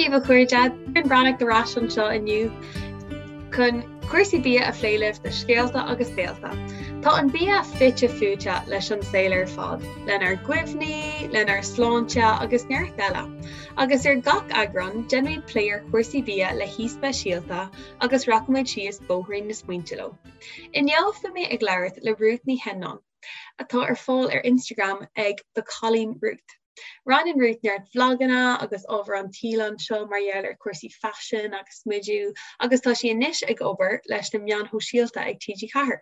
daoibh a chairde, Doireann Breathnach ar ais anseo inniu chun cúrsaí bia a phlé libh do Scéalta agus Béalta. Tá an bia fite fuaite leis an saol ar fad, lenár gcuimhní, lenár sláinte agus neart eile. Agus ar gach eagrán, déanfaimid plé ar chúrsaí bia le haoi speisialta agus rachaimid síos bóithrín na smaointe leo. Inniu beidh mé ag labhairt le Ruth Ní Sheannáin, atá ar fáil ar Instagram ag The Cailín Ruth. Roinneann Ruth neart vlaganna agus ábhar an tsaoil anseo mar gheall ar chúrsaí faisin agus smidiú agus tá sí anois ag obair leis na meáin shóisialta ag TG4.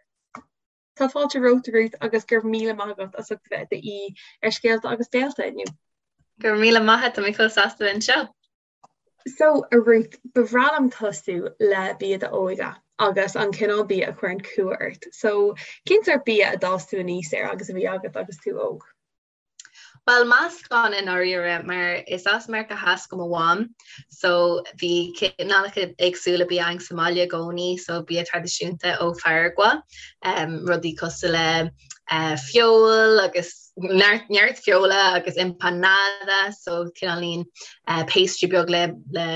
Tá fáilte romhat Ruth agus go raibh míle maith agat as ucht a bheith i d'aoi ar Scéalta agus Béalta inniu. Go raibh míle maith agat, tá mé chomh sásta bheith anseo. So, a Ruth, ba bhreá liom tosú le bia d'óige agus an cineál bia a chuireann cumha ort. So, cén sórt bia a d'fhás tú aníos air agus a bhí agat agus tú óg? Bhuel, meascán i ndáiríre, mar is as Meiriceá Theas do mo mham, so bhí cineálacha éagsúla bia againn sa mbaile i gcónaí, so bia traidisiúnta ó Pharagua, rudaí cosúil le feoil agus neart, neart feola agus empanada, so cineáilín pastry beag le, le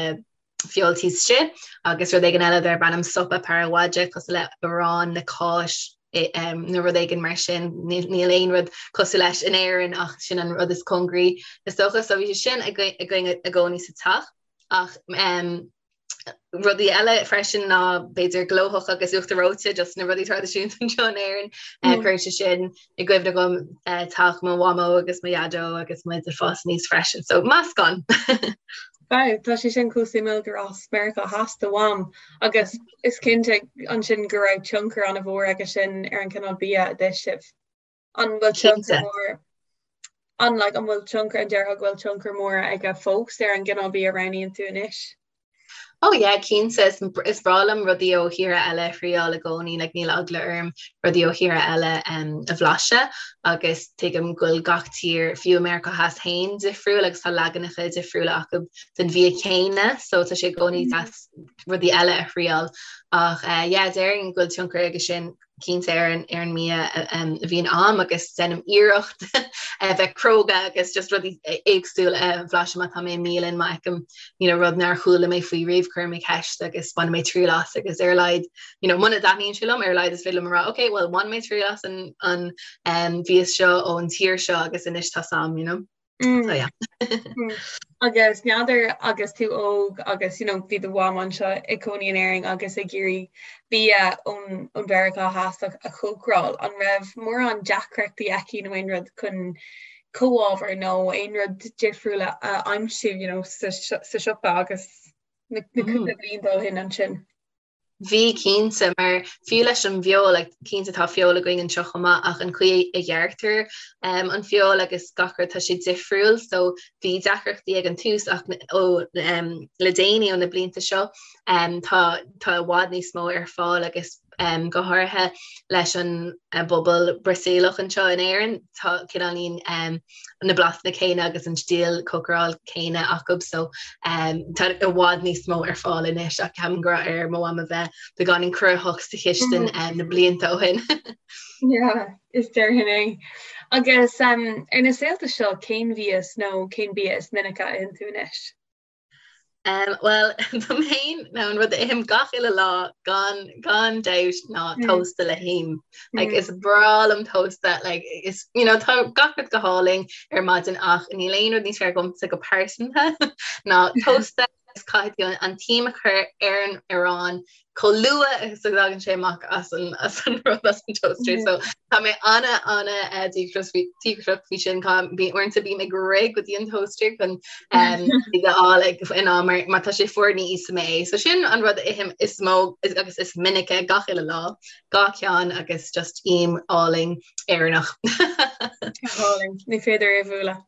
feoil taobh istigh agus rud éigin eile darb ainm sopa paraguaya cosúil le arán le cáis nó rud éigin mar sin. Níl aon rud cosúil leis in Éirinn ach sin an rud is cóngaraí is dócha. So bhí sé sin againn i gcónaí sa teach ach rudaí eile freisin ná b'fhéidir glóthach agus uachtar reoite, just na rudaí traidisiúnta anseo in Éirinn. Cuireann sé sin i gcuimhne dhom teach mo mhamó agus mo dhaideo agus muid ag fás aníos freisin. So meascán! Wow, tá sé sin chomh suimiúil gur as Meiriceá Theas do mham agus is cinnte ansin go raibh tionchar an-mhór aige sin ar an cineál bia a d'ith sibh. An bhfuil tionchar mór an like, an bhfuil tionchar an déarfá go bhfuil tionchar mór aige fós ar an gcineál bia a roghnaíonn tú anois? Oh yeah, cinnte, is is breá liom rudaí ó thíortha eile a thriáil i gcónaí, like níl eagla orm rudaí ó thíortha eile um, a bhlaiseadh agus tuigim go bhfuil gach tír, fiú i Meiriceá Theas féin, difriúil agus tá leaganacha difriúla acu den bhia céanna so tá sé i gcónaí deas rudaí eile a thriáil. Ach eh, yeah, déarfainn go bhfuil tionchar aige sin cinnte ar an ar an mbia a bhíonn a'm agus déanaim iarracht a bheith cróga agus just rudaí éagsúla a bhlaiseadh má tá mé i mbialann má fheicim you know, rud nár chuala mé faoi riamh cuirim mé ceist agus bainim mé triail as agus ar a laghad you know, muna dtaitníonn sé liom ar a laghad is féidir liom a rá ok well bhain mé triail as an an um, mhias seo ón tír seo agus anois tá 'fhios a'm you know. Mm. So, yeah. mm. Agus n'fheadar agus tú óg agus you know, bhí do mham anseo ag cónaí in Éirinn agus ag iarraidh bia ón ón Mheiriceá Theas a chócaráil, an raibh mórán deacrachtaí aici nó aon rud chun comhábhair nó aon rud difriúil a aimsiú you know, sa, sa siopa agus na, na mm. cúpla blianta ó shin ansin? Bhí, cinnte, mar fiú leis an bhfeoil, like, cinnte tá feoil againn anseo chomh maith ach an chaoi a ghearrtar um, an feoil agus gach rud tá sé difriúil, so bhí deacrachtaí ag an tús ach ó um, le déanaí ó na blianta seo um, tá, tá i bhfad níos mó ar fáil agus um, go háirithe leis an uh, bpobal Brasaíleach anseo in Éirinn, tá cineáilín um, na blasanna céanna agus an stíl cócaráil céanna acu so um, tá i bhfad níos mó ar fáil anois ach ceapaim go raibh ar mo mham a bheith beagáinín cruthaitheach sa chistin mm. um, na blianta ó shin. yeah, is déarfainn é. Agus um, ar na saolta seo cén mhias nó cén bia is minice a itheann tú anois? Um, well dom féin ná an rud a ithim gach uile lá gan gan dabht ná mm. tósta le him. Like, mm. Is breá liom tósta like, is, you know, tá gach rud go hálainn ar maidin ach níl aon rud níos fearr dhomsa go pearsanta ná tósta is caithfidh tú an t-im a chur ar an arán chomh luath is a thagann sé amach as an as an rud as an toaster. So tá mé ana ana eh, díograiseach faoi sin bhí uaireanta bím ag rith go dtí an toaster chun um, a fháil ag in am mar má tá sé fuar ní íosfaidh mé é. So sin an rud a ithim is mó agus is minice gach uile lá, dhá cheann agus just im álainn Éireannach. Álainn, ní féidir é a bhualadh.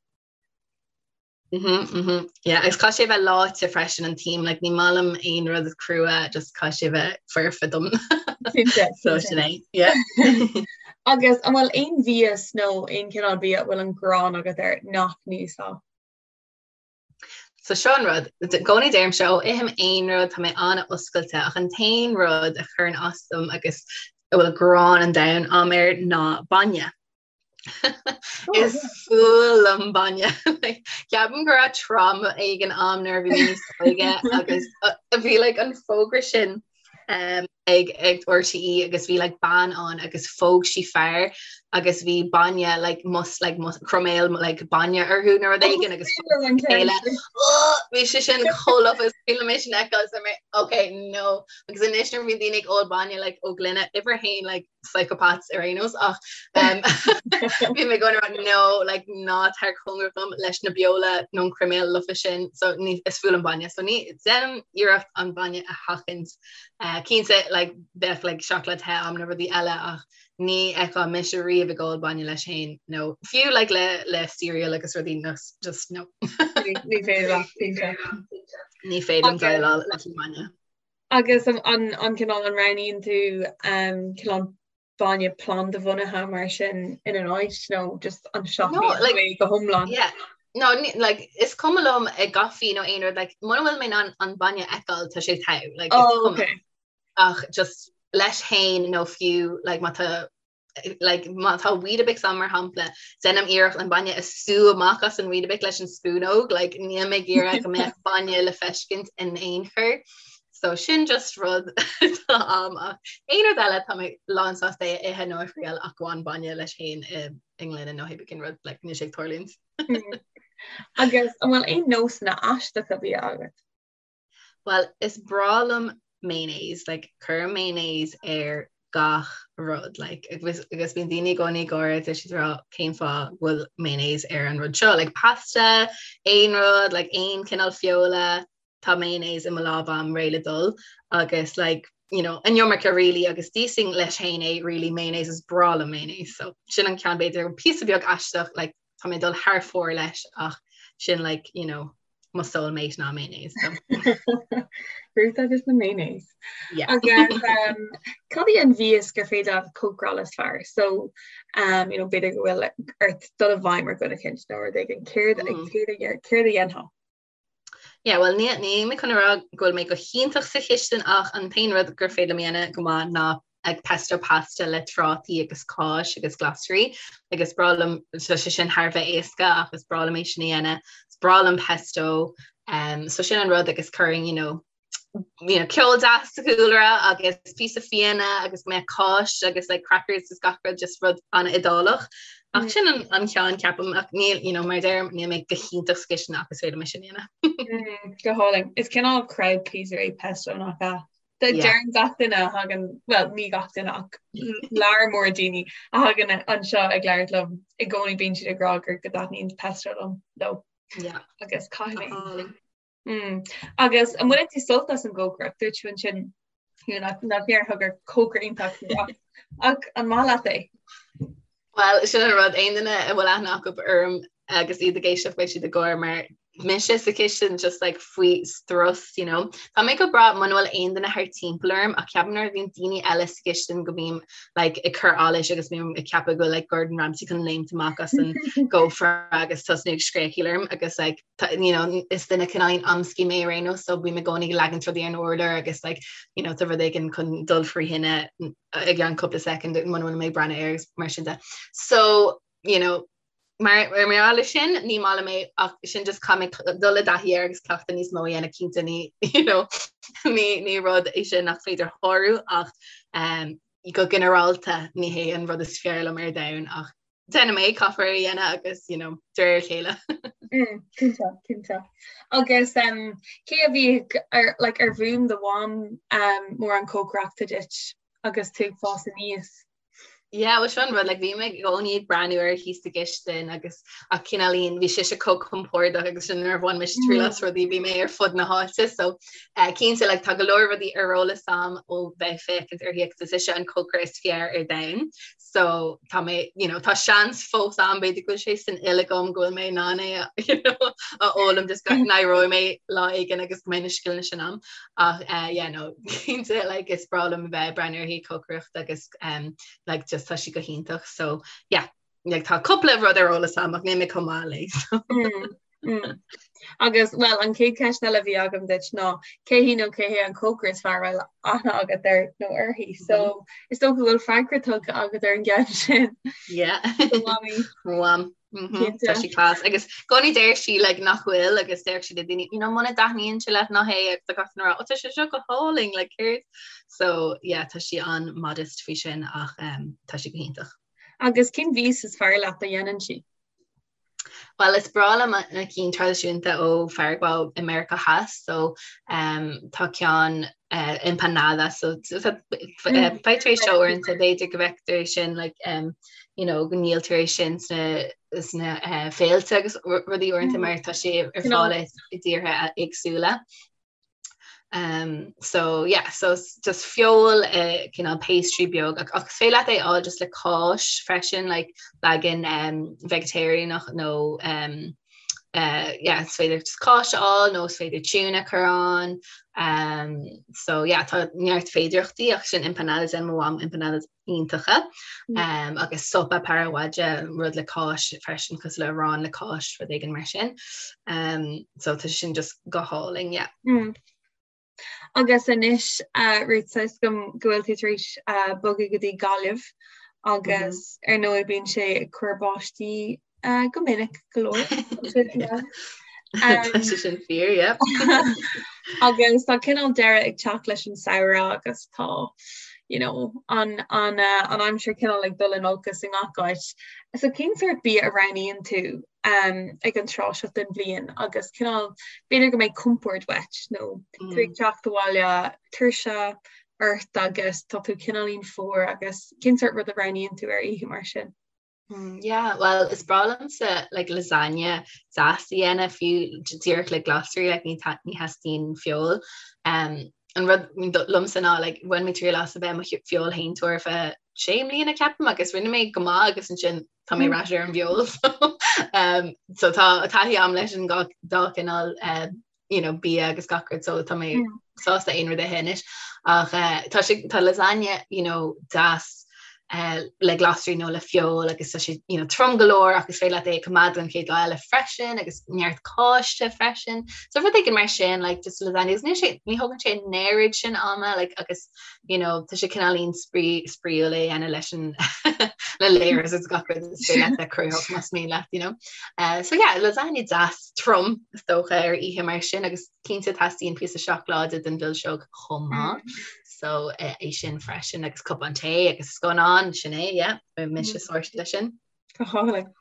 Mhm, mhm. Yeah, agus caithfidh sé bheith leáite freisin an t-im, like, ní maith liom aon rud crua, just caithfidh sé bheith foirfe dom. Cinnte, So sin é, yeah. Agus an bhfuil aon mhias nó aon chineál bia a bhfuil an ghráin agat air nach n-íosfá? So seo an rud, i gcónaí deirimse, ó ithim aon rud, tá mé an-oscailte, ach an t-aon rud a chuireann as dom agus a bhfuil gráin an domhain a'm air ná bainne. Is fuath liom bainne. Ceapaim go raibh trauma éigin a'm nuair a bhí mé níos óige agus bhí like an fógra sin um, ag ag RTÉ agus bhí like bean ann agus phóg sí fear agus bhí bainne like mus like mus croiméal like bainne orthu nó rud éigin agus chéile bhí sé sin chomh lofa is bhí mé sin fheiceáil so mé okay no agus anois nuair a bhíonn daoine ag ól bainne like ó gloine uimhir a haon like psychopaths ar aon nós ach um, bhí mé going around no like ná tar cóngarach dom leis na beola nó an croiméal lofa sin so ní is fuath liom bainne so ní déanaim iarracht an bainne a sheachaint uh, cinnte like bheadh like seacláid the a'm nó rudaí eile ach ní fheicfeá mise riamh ag ól bainne leis féin nó fiú like le le cereal agus rudaí no just no Ní féidir leat, cinnte. Ní féidir liom déileáil leis an mbainne. Agus an cineál an roghnaíonn tú cineál bainne plandabhunaithe mar sin ina n-áit nó just an seachnaíonn tú é go hiomlán? Yeah. No, like, is cuma liom i gcaife nó aon rud, like, muna bhfuil mé in ann an bainne a fheiceáil, tá sé togha, like, is Oh, cuma. okay. Ach just leis féin nó fiú, like, má tá like, má tá Weetabix ann mar shampla, déanaim iarracht an bainne a sú amach as an Weetabix leis an spúnóg, like, níl mé ag iarraidh go mbeadh bainne le feiscint in aon chor. So sin just rud atá a'm ach aon rud eile tá mé lán sásta é a ithe nó a thriail ach gan bainne leis féin i i ngloine nó pé cén rud like, níl sé ag tarlúint. Agus an bhfuil aon nósanna aisteacha bia agat? Bhuel, is breá liom mayonnaise, like, cuirim mayonnaise ar gach rud, like, agus, agus bíonn daoine i gcónaí ag gáire, tá siad ag rá cén fáth go bhfuil mayonnaise ar an rud seo, like, pasta, aon rud, like, aon cineál feola, tá mayonnaise i mo lámh a'm réidh le dul, agus, like, you know, an iomarca really, agus d'íosfainn leis féin é, really, mayonnaise, is breá liom mayonnaise, so sin an ceann b'fhéidir píosa beag aisteach, like, tá mé ag dul thar fóir leis ach sin like, you know, mo soulmate ná mayonnaise. So. Ruth agus na mayonnaise. Yeah. Agus um, cad í an mhias gur féidir leat cócaráil is fearr? So um, you know, b'fhéidir go bhfuil ort dul i bhfeidhm ar dhuine éicint nó rud éigin céard mm. céard a céard a dhéanfá? Yeah, well ní ní mé chun a rá go bhfuil mé go hiontach sa chistin ach an t-aon rud gur féidir liom a dhéanamh go maith ná like pesto pasta le trátaí agus cáis agus glasraí agus is breá liom tá sé sin thar a bheith éasca ach is breá liom é sin a dhéanamh. Is breá liom pesto um, so sin an rud agus cuirim you know, you know, ceol deas sa chúlra agus píosa fíona agus mé cáis agus like, crackers is gach rud just rud an-Iodálach. Ach mm. sin an, an ceann ceapaim ach níl you know, mar deirim níl mé go hiontach sa chistin ach is féidir liom é sin a dhéanamh. mm, go hálainn. Is cineál crowd pleaser é pesto nach ea? Deireann gach duine a thagann, bhuel ní gach duine ach lear mór daoine a thagann anseo ag labhairt liom i gcónaí bíonn siad ag rá gur go dtaitníonn pesto liom leo. Agus caithfidh mé. Mm. Agus an mbaineann tú sult as an gcócaireacht? Dúirt tú ansin nach nach ndéarfá gur cócaire iontach tú ach ach an maith leat é? Bhuel, sin an rud, aon duine a bhfuil aithne acu orm agus iad ag éisteacht beidh siad ag gáire mar mise sa chistin just like faoi strus, you know. Tá mé go breá muna bhfuil aon duine thart timpeall orm ach ceapaim nuair a bhíonn daoine eile sa chistin go mbím like ag cur allais agus bím ag ceapadh go bhfuil like Gordon Ramsay chun léimt amach as an gcófra agus tosnú ag scréachaíl orm agus like you know, is duine cineál amscaí mé ar aon nós so bím i gcónaí ag leagaint rudaí ar an urlár agus like, you know, tá rud éigin chun dul faoi thine i gceann cúpla soicind muna bhfuil mé ag breathnú air agus mar sin de. So, you know, mar mar gheall air sin ní maith liom é ach sin just caithfidh mé dul i dtaithí air agus cleachtadh níos mó a dhéanamh cinnte ní you know, ní ní rud é sin nach féidir shárú ach um, go ginearálta ní hé an rud is fearr liom ar domhan ach déanaim é caithfear é a dhéanamh agus you know, de réir a chéile. Mm, cinnte, cinnte. Agus um, cé a bhí ar, like, ar mhúin do mham um, mórán cócaireachta duit agus tú ag fás aníos? Yeah, well sin an rud, like, bhí mé i gcónaí ag breathnú uirthi thíos sa gcistin agus ach cineáilín bhí sise chomh compordach agus sin nuair a bhain mise triail as rudaí bhí mé ar fud na háite so uh, cinnte like, tá go leor rudaí ar eolas a'm ó bheith ag féachaint uirthi agus is ise an cócaire is fearr ar domhan so tá mé you know tá seans fós a'm b'fhéidir go bhfuil sé san fhuil agam go bhfuil mé in ann é a you know a fhoghlaim just go n-éireoidh mé lá éigin agus go mbeidh na scileanna sin a'm ach uh, yeah no cinnte like is breá liom a bheith ag breathnú uirthi ag cócaireacht agus um, like just tá sí go hiontach so yeah like tá cúpla rud ar eolas a'm ach níl mé chomh maith léi so. Mm. Mm. Agus well an chéad cheist eile a bhí agam duit ná cé hí nó cé hé an cócaire is fearr a bhfuil aithne agat air nó uirthi. So mm -hmm. is dócha go bhfuil freagra tugtha agat ar an gceann sin. Yeah. Mamaí. Mham. Tá sí class agus i gcónaí deir sí like nach bhfuil agus deir sí le daoine you know muna dtaitníonn sé leat ná hé agus tá gach duine ag rá oh tá sé seo go hálainn like céard so yeah tá sí an-modest faoi sin ach um, tá sí go hiontach. Agus cén mhias is fearr leat a dhéanann sí? Well is breá liom na cinn traidisiúnta ó Pharagua i Meiriceá Theas so um, tá ceann uh, empanada so faightear é seo uaireanta b'fhéidir go bhfeictear é sin like, um, you know, go ndíoltar é sin sna sna uh, féilte agus rudaí uaireanta mm. mar tá sé ar fáil i dtíortha éagsúla. Um, so yeah, so just feoil uh, cineál pastry beag ach, ach is féidir leat é a fháil just le cáis freisin like leagan um, vegetarianach nó um, uh, yeah, is féidir just cáis a fháil nó is féidir tuna a chur ann um, so yeah, tá neart féidireachtaí ach sin empanadas déanann mo mham empanadas iontacha mm. um, agus sopa paraguaya rud le cáis freisin cosúil le arán le cáis rud éigin mar sin um, so tá sin just go hálainn yeah. Mm. Agus anois uh, Ruth tá a fhios agam go bhfuil tú tar éis uh, bogadh go dtí Gaillimh agus mm -hmm. ar ndóigh bíonn sé ag cur báistí uh, go minic go leor. Tá sé sin fíor, yeah. Agus tá cineál deireadh ag teacht leis an samhradh agus tá you know, an, an, uh, an aimsir cineál ag dul in olcas i ngach áit. So cén sórt bia a roghnaíonn tú um, ag an tráth seo den bhliain agus cineál b'fhéidir go mbeidh compord uait nó mm. tú ag teacht abhaile tuirse ort agus tá tú cineáilín fuar agus cén sórt rud a roghnaíonn tú ar oíche mar sin? Mm, yeah, well is breá liomsa like lasagne deas a dhéanamh fiú díreach le glasraí like ní ní theastaíonn feoil. Um, an rud liomsa ná like bhain mé triail as a bheith i mo feoilséantóir ar feadh sé mbliana ceapaim agus rinne mé go maith agus ansin tá mé mm. ar ais ar an bhfeoil so, um, so tá taithí agam leis an dá chineál uh, you know, bia agus gach rud so tá mé mm. sásta aon rud a ithe anois ach uh, tá sé tá lasagne you know, deas uh, le glasraí nó le feoil agus tá sé you know, trom go leor agus féidir leat é a choimeád don chéad lá eile freisin agus neart cáiste freisin. So rud éigin mar sin like, just lasagne agus ní sé ní thógann sé an oiread sin ama like, agus you know, tá sé cineáilín spraíúil é a dhéanamh leis an le layers agus gach rud is féidir leat a chruthú más mian leat, you know. Uh, so yeah, lasagne deas trom is dócha ar oíche mar sin agus cinnte teastaíonn píosa seacláide don mhilseog chomh maith. Mm. So uh, é sin freisin agus cupán tae agus scannán sin é, yeah, mise mm. sorted leis sin. Go hálainn.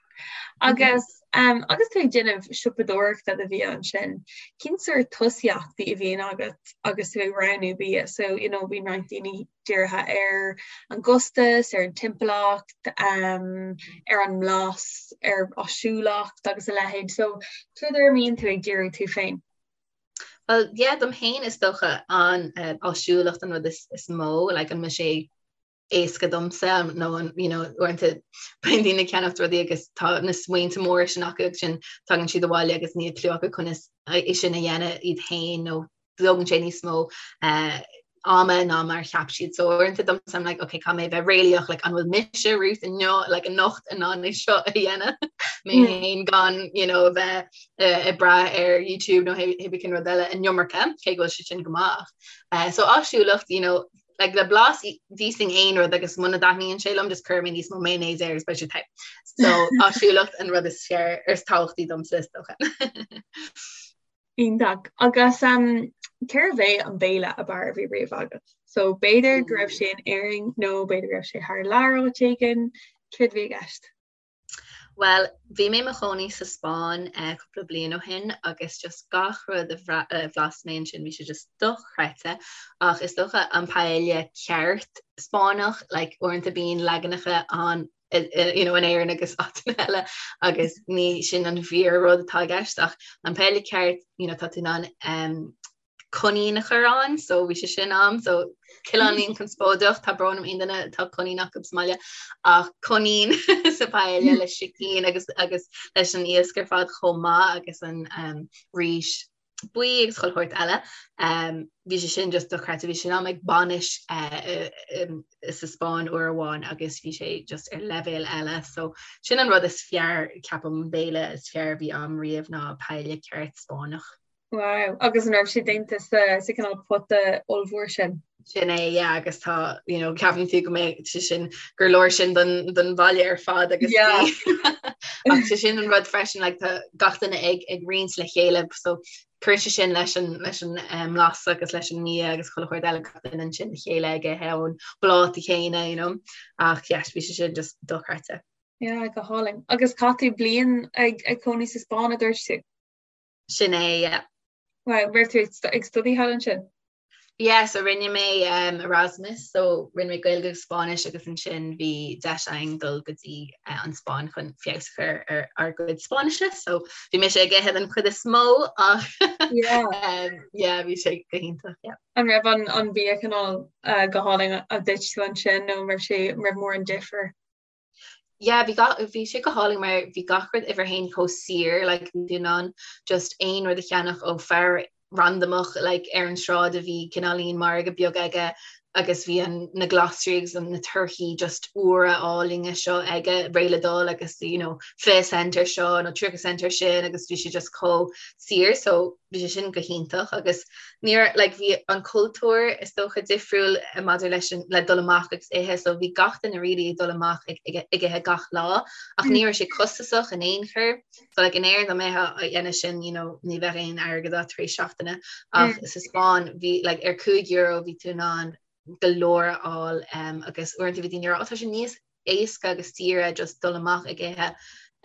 Agus um, agus tú ag déanamh siopadóireachta do bhia ansin, cén sórt tosaíochtaí a bhíonn agat agus tú ag roghnú bia? So, you know, bíonn roinnt daoine dírithe ar an gcostas, ar an timpeallacht, um, ar an mblas, ar áisiúlacht agus a leithéid. So, céard air a mbíonn tú ag díriú tú féin? Well, yeah, dom féin is dócha an uh, áisiúlacht an rud is, is mó, like, an mbeidh sé éasca domsa nó an you know uaireanta bíonn daoine ag ceannacht rudaí agus tá na smaointe móra sin acu agus ansin tagann siad abhaile agus níl cliú acu conas é sin a dhéanamh iad féin nó tógann sé níos mó uh, ama ná mar cheap siad so uaireanta domsa I'm like okay caithfidh mé bheith réalaíoch like an bhfuil mise Ruth inniu like anocht in ann é seo a dhéanamh mé mm. féin gan you know a bheith uh, ag brath ar YouTube nó hé cén rud eile an iomarca cé go bhfuil sé sin go maith uh, so áisiúlacht you know like le blas d'íosfainn aon rud agus muna dtaitníonn sé liom just cuirfidh mé níos mó mayonnaise air agus beidh sé te. So áisiúlacht an rud is fearr is tábhachtaí domsa is dócha. Iontach. Agus um, cérbh é an béile ab fhearr a bhí riamh agat? So b'fhéidir go raibh sé in Éirinn nó b'fhéidir go raibh sé thar lear áit éigin, céard a bhí i gceist? Bhuel, bhí mé i mo chónaí sa Spáinn cúpla bliain ó shin agus just gach rud a bhlas mé ansin bhí sé just dochreidte ach is dócha an paella ceart Spáinneach, like uaireanta bíonn leaganacha ann you know in Éirinn agus áiteanna eile agus ní sin an fíor rud atá i gceist ach an paella ceart you know tá tú in ann um, coinín a chur ann so bhí sé sin a'm so cineáilín conspóideach tá brón orm aon duine atá coinín acu sa mbaile ach coinín sa paella le sicín agus agus leis an iasc ar fad chomh maith agus an um, rís buí agus chuile shórt eile. Um, bhí sé sin just dochreidte bhí sin a'm ag bainis uh, um, sa Spáinn uair amháin agus bhí sé just ar leibhéal eile so sin an rud is fearr ceapaim béile is fearr a bhí a'm riamh ná paella ceart Spáinneach. Wow, agus an raibh sé déanta sa sa cineál pota ollmhór sin? Sin é, yeah, agus tá, you know, ceapann tú go mbeidh sé sin, gur leor sin don, don bhaile ar fad agus yeah. Ach sé sin an rud freisin, like, tá gach duine ag, ag roinnt le chéile, so cuireann sé sin leis an, leis an um, mblas agus leis an mbia agus chuile shórt eile gach duine ansin le chéile ag ithe ón bpláta chéanna, you know. Ach yes, bhí sé sin just dochreidte. Yeah, go hálainn. Agus chaith tú bliain ag, ag cónaí sa Spáinn a dúirt tú? Sin é, yeah. Wow, raibh tú ag study thall ansin? Yeah, so rinne mé um, Erasmus, so rinne mé Gaeilge agus Spáinnis agus ansin bhí deis againn dul go dtí uh, an Spáinn chun feabhas a chur ar ár gcuid Spáinnise, so bhí mise ag ithe den chuid is mó ach yeah. um, yeah, bhí sé go hiontach, yeah. An raibh an, an bia cineál uh, go hálainn a d'ith tú ansin nó raibh sé raibh mórán difir? Yeah, bhí gach, bhí sé go hálainn mar bhí gach rud uimhir a haon chomh saor, like bhí tú in ann just aon rud a cheannach ó fear randamach like ar an sráid a bhí cineáilín margadh beag aige agus bhí an, na glasraí agus an, na torthaí just úra álainne seo aige réidh le dul agus you know 20 cent ar seo nó 30 cent ar sin agus bhí sé just chomh saor so bhí sé sin go hiontach agus ní raibh like bhí an cultúr is dócha difriúil maidir leis an le dul amach agus ithe so bhí gach duine really ag dul amach ag ag ag ithe gach lá ach ní raibh sé costasach in aon chor so like in Éirinn dá mbeifeá á dhéanamh sin you know ní bheadh aon airgead agat tar éis seachtaine ach sa Spáinn bhí like ar €5 bhí tú in ann go leor a fháil um, agus uaireanta bhí daoine ag rá oh tá sé níos éasca agus saoire just dul amach ag ithe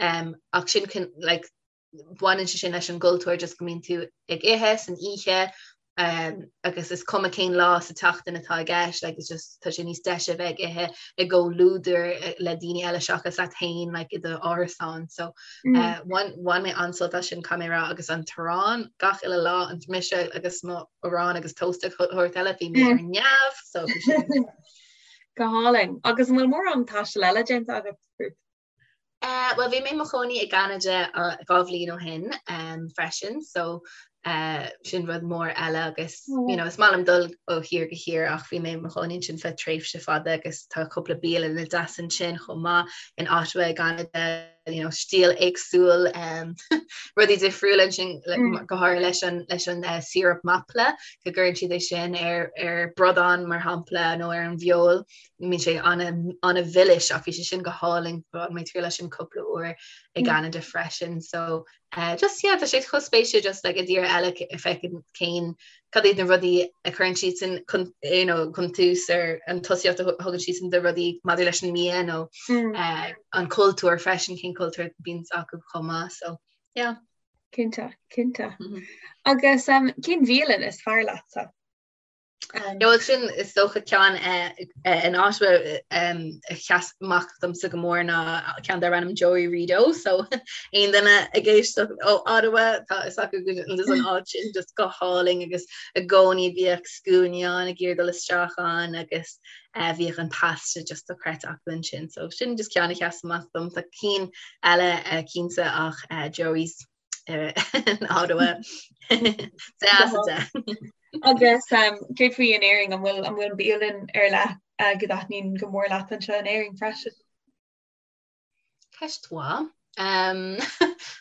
um, ach sin like baineann sé sin leis an gcultúr just go mbíonn tú ag ithe san oíche um, agus is cuma cén lá sa tseachtain atá i gceist like, it's just tá sé níos deise bheith ag ithe i gcomhluadar eh, le daoine eile seachas leat féin like, i do árasán so mm. uh, bhain, bhain mé an-sult as sin caithfidh mé a rá agus an t-arán gach uile lá an mise agus mo arán agus toast agus chuile shórt eile bhí mé mm. ar neamh so Go hálainn agus an bhfuil mórán taistil eile déanta agat Ruth? Bhuel, bhí mé i mo chónaí i gCeanada 2 bhliain ó shin freisin, so sin rud mór eile agus you know, is maith liom dul ó thír go thír ach bhí mé i mo chónaí ansin feadh tréimhse fada agus tá cúpla bialanna deas ansin chomh maith in Ottawa i gCeanada, you know, stíl éagsúil um, rudaí difriúla ansin mm. go háirithe leis an, leis an uh, syrup maple go gcuireann siad é sin ar, ar bradán mar shampla nó ar an bhfeoil. Bíonn sé an-mhilis ach bhí sé sin go hálainn bhain mé triail as sin cúpla uair i gCeanada freisin so uh, just yeah tá sé chomh spéisiúil just like i dtír eile feiceann cén cad iad na rudaí a chuireann siadsan chun you know chun tús ar an tosaíocht a thugann siadsan do rudaí maidir leis an mbia nó mm. uh, an cultúr freisin cén cultúr bíonn acu chomh maith so yeah. Cinnte, cinnte. Mm -hmm. Agus um, cén bhialann is fearr leatsa? Bhuel sin is dócha ceann in Ottawa a sheas amach domsa go mór ná ceann darb ainm Joey Rideau so aon duine ag éisteacht ó Ottawa tá fhios acu go bhfuil an áit sin just go hálainn agus i gcónaí bhíodh scuainí ann ag iarraidh dul isteach ann agus bhíodh an pasta just dochreidte acu ansin so sin just ceann a sheas amach dom tá cinn eile cinnte ach Joey's in Ottawa. Agus céard faoi in Éirinn an bhfuil an bhfuil bialann ar leith go dtaitníonn go mór leat anseo in Éirinn freisin? Ceist mhaith.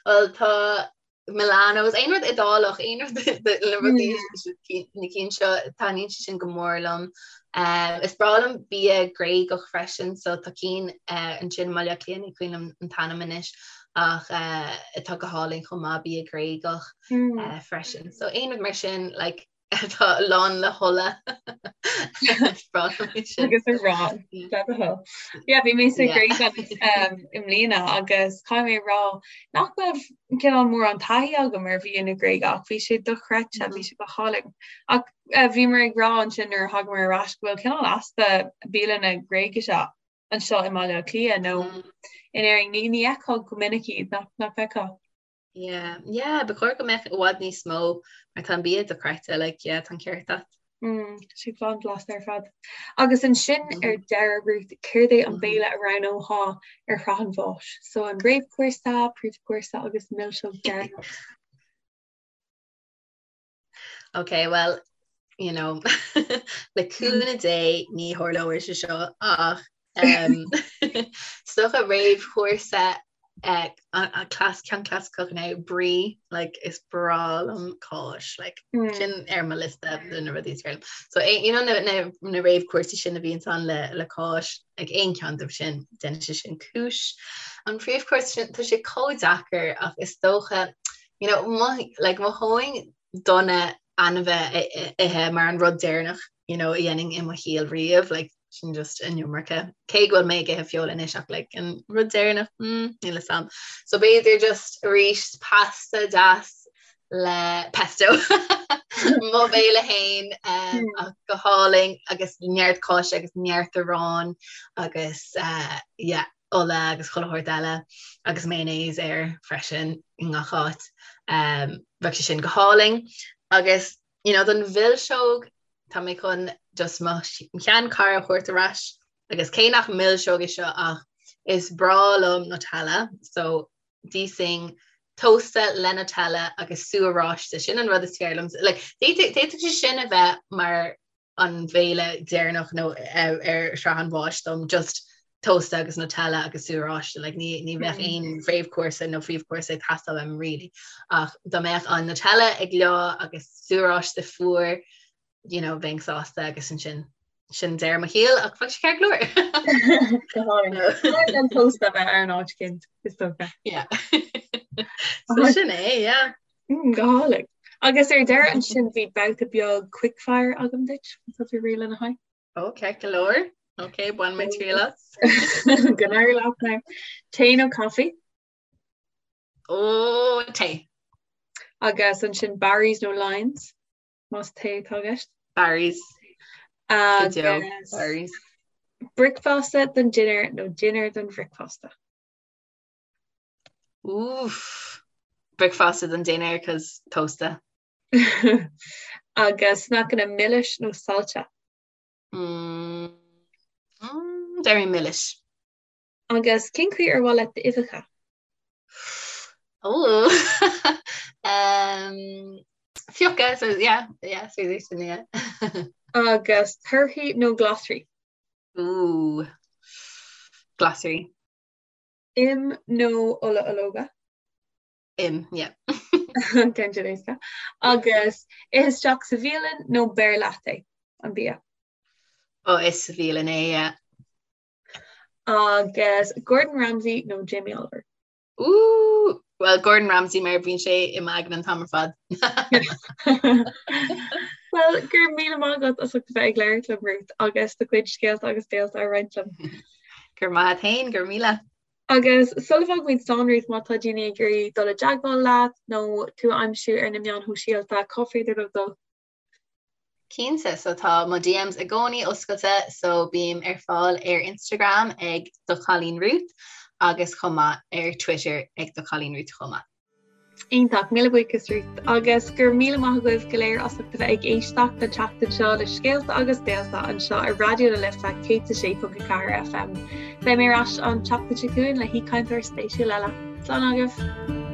Bhuel tá Milano's aon rud Iodálach aon rud le rudaí na cinn seo taitníonn sé sin go mór liom. Is breá liom bia Gréagach freisin so tá cinn ansin i mBaile Átha Cliath ní cuimhin liom an t-ainm anois ach atá go hálainn chomh maith, bia Gréagach freisin. So aon rud mar sin like atá lán le hola agus arán Yeah, bhí mé sa Ghréig i mbliana agus caithfidh mé rá nach raibh cineál mórán taithí agam ar bhia na Gréige ach bhí sé dochreidte, bhí sé go hálainn. Ach bhíomar ag rá ansin nuair a thagamar ar ais go bhfuil cineál easpa bialanna Gréigise anseo i mBaile Átha Cliath nó in Éirinn. Ní ní fheicfeá go minic iad, nach nach bhfeicfeá? Yeah, yeah, ba chóir go mbeadh i bhfad níos mó mar tá an bia dochreidte, like, yeah, tá an ceart agat. Mm, sé blasta ar fad. Agus ansin mm -hmm. ar deireadh Ruth, céard é an mm -hmm. béile a roghnófá ar shraith an bháis? So an réamhchúrsa, príomhchúrsa agus milseog deireanach. Ok, well, you know, le cúnamh Dé ní tharlóidh sé seo ach um, is dócha réamhchúrsa Eh, clas ceann clasaiceach now brie like is breá liom cáis like mm. sin ar mo liosta de na rudaí is fearr liom. So eh, you know na, na, na réamhchúrsaí sin a bhíonn ann le, le cáis like aon cheann díobh sin déanann sé sin cúis. An príomhchúrsa sin tá sé chomh deacair ach is dócha you know mo, like mhothóinn dona ainmhí a ithe mar an rud deireanach you know, a dhéanfainn i mo shaol riamh, like, sin just an iomarca. Cé go bhfuil mé ag ithe feola anois ach like, an rud deireanach, mm, níl 'fhios a'm. So b'fhéidir just arís pasta deas le pesto. Mo bhéile fhéin um, hmm. ach go hálainn agus neart cáise agus neart aráin agus uh, yeah, ola agus chuile shórt eile agus mayonnaise air freisin i ngach áit. Um, bheadh sé sin go hálainn agus you know, don mhilseog tá mé chun just mo sheanchara a thabhairt ar ais agus cé nach milseog é seo ach is breá liom Nutella so d'íosfainn tósta le Nutella agus sú oráiste sin an rud is fearr liom. Like, d'fhéadfadh sé sin a bheith mar an bhéile deireanach nó ar shraith an bháis dom just tósta agus Nutella agus sú oráiste like ní ní bheadh mm. aon réamhchúrsa nó príomhchúrsa ag teastáil uaim really ach dá mbeadh an Nutella ag leá agus sú oráiste fuar you know bheinn sásta agus ansin sin deireadh mo shaoil ach bheadh sé ceart go leor. An tósta bheith ar an áit cinn is dócha. Yeah. So sin é, yeah. Mm, go hálainn. Agus ar deireadh ansin bhí babhta beag quickfire agam duit, tá tú réidh lena haghaidh? Ó, ceart go leor. Ok, bain mé triail as. Go n-éirí leat now. Tae nó caife? Ó, tae. Agus ansin Barry's nó Lyons? Más tae atá i gceist? Barry's. Agus Barry's. Bricfeasta don dinnéar nó dinnéar don bhricfeasta? Oof. Bricfeasta don dinnéar cos tósta. Agus sneaiceanna milis nó saillte? Mm. Mm, Déarfainn milis. Agus cén chaoi ar mhaith leat d'uibheacha? Oh. um, Fiuchadh, so yeah, yeah, so sin, yeah. Agus torthaí nó glasraí? Ooh. Glasraí. Im nó ola ológa? Im, yeah. Ceann sin éasca. Agus ith isteach sa bhialann nó beir leat é, an bia? Ó, ith sa bhialann é, yeah. Agus Gordon Ramsay nó Jamie Oliver? Ooh, well Gordon Ramsay mar bíonn sé i m'aigne an t-am ar fad. Well, go raibh míle maith agat as ucht a bheith ag labhairt liom, Ruth, agus do chuid scéalta agus béalta a roinnt liom. Go raibh maith agat féin, go raibh míle. Agus sula bhfágaimid slán, Ruth, má tá daoine ag iarraidh dul i dteagmháil leat nó tú a aimsiú ar na meáin shóisialta, cá féidir leo dul? Cinnte, so tá mo DMs i gcónaí oscailte, so bím ar fáil ar Instagram ag Do Chailín Ruth agus chomh maith ar Twitter ag Do Chailín Ruth chomh maith. Iontach, míle buíochas Ruth agus go raibh míle maith agaibh go léir as ucht a bheith ag éisteacht an tseachtain seo le Scéalta agus Béalta anseo ar Raidió na Life 106.4 FM. Beidh mé ar ais an tseachtain seo chugainn le haoichainteoir spéisiúil eile. Slán agaibh!